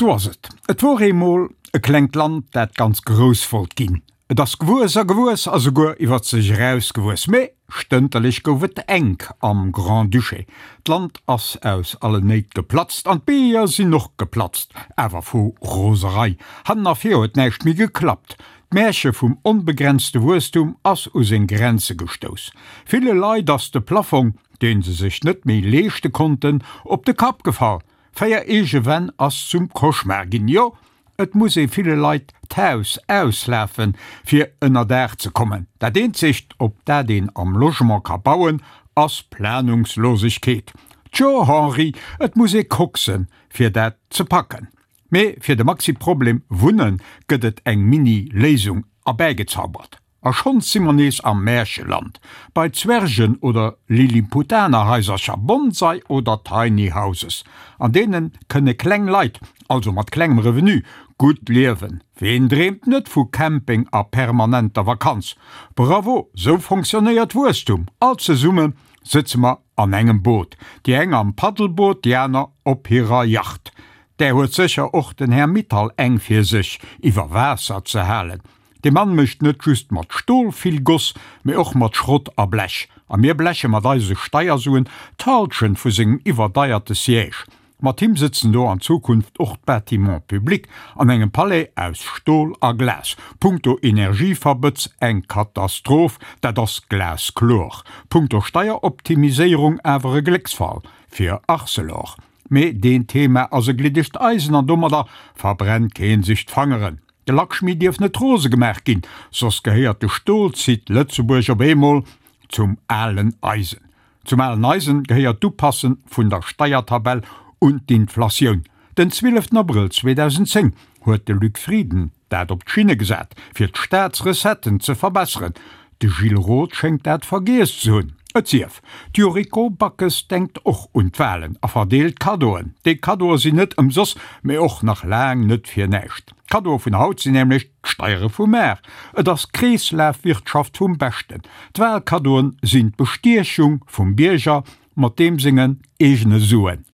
Sou ass et. Et wor eemol e klengt Land, dat ganz grouss wollt ginn. Et ass gewuess a gewuess a souguer iwwer sech eraus gewuess. Mee stënterlech gouf et enk am Grand-Duché. D'Land ass aus allen Néit geplatzt an d'Beeër sinn och geplatzt, awer vu Roserei. Hannen a vir huet näischt méi geklappt. D'Märche vum onbegrenzte Wuesstum ass u seng Grenze gestouss. Ville Leit ass de Plaffong, dee se sech net méi leeschte konnten, op de Kapp gefall. 4 eege Wänn ass zum Cauchemar ginn. Jo, et muss ee ville Leit d'Haus auslafen, fir ënnerdaach ze kommen. Dat eenzegt, op dat een am Logement ka bauen, ass Planungslosegkeet. Tjo, Henri, et muss ee koksen, fir dat ze packen. Mee fir de Maxi-Problem Wunnen gëtt et eng Mini-Léisung erbäigezaubert. A schonns si mer nees am Märcheland, bei Zwergen oder Lilliputanerhaisercher, Bonsai oder Tiny Houses. An deene kënne kleng Leit, also mat klengem Revenu, gutt liewen. Ween dreemt net vu Camping a permanenter Vakanz? Bravo, sou fonctionnéiert Wuesstum! All zesumme sëtze mer an engem Boot, déi eng am Paddelboot, déi aner op hirer Yacht. Där huet sécher och den Här Mittal eng fir sech iwwer Waasser ze halen. De Mann mécht net just mat Stol vill Goss, mee och mat Schrott a Blech. A mir bleche mat eise Steiersuen d'Halschent vu sengem iwwerdeierte Siège. Mat him sëtzen do an Zukunft och d'Bâtiments publics an engem Palais aus Stol a Glas. Punkto Energieverbëtz eng Katastroph, dat ass glaskloer. Punkto Steieroptimiséierung awer e Glécksfall fir Arcelor. Mee deen Thema ass e gliddegt Eisen an domadder verbrennt keen sech d'Fangeren. De Lakshmi dierf net rose gemaach ginn, soss gehéiert de Stolsite Lëtzebuerg op eemol zum alen Eisen. Zum alen Eisen gehéiert d'Upasse vun der Steiertabell un d'Inflatioun. Den 12 Abrëll 2010 huet de Luc Frieden dat op d'Schinne gesat, fir d'Staatsrecetten ze verbesseren. De Gilles Roth schéngt dat vergiess ze hunn. Et sief, d'Yuriko Backes denkt och un d'Walen a verdeelt Kaddoen. Déi Kaddoe sinn net ëmsoss, mee och nach laang net fir näischt. D'Kaddoe vun haut sinn nämlech d'Steiere vu mar. Et ass Kreeslafwirtschaft vum Beschten. D'Walkaddoen sinn d'Bestiechung vum Bierger mat deem sengen eegene Suen.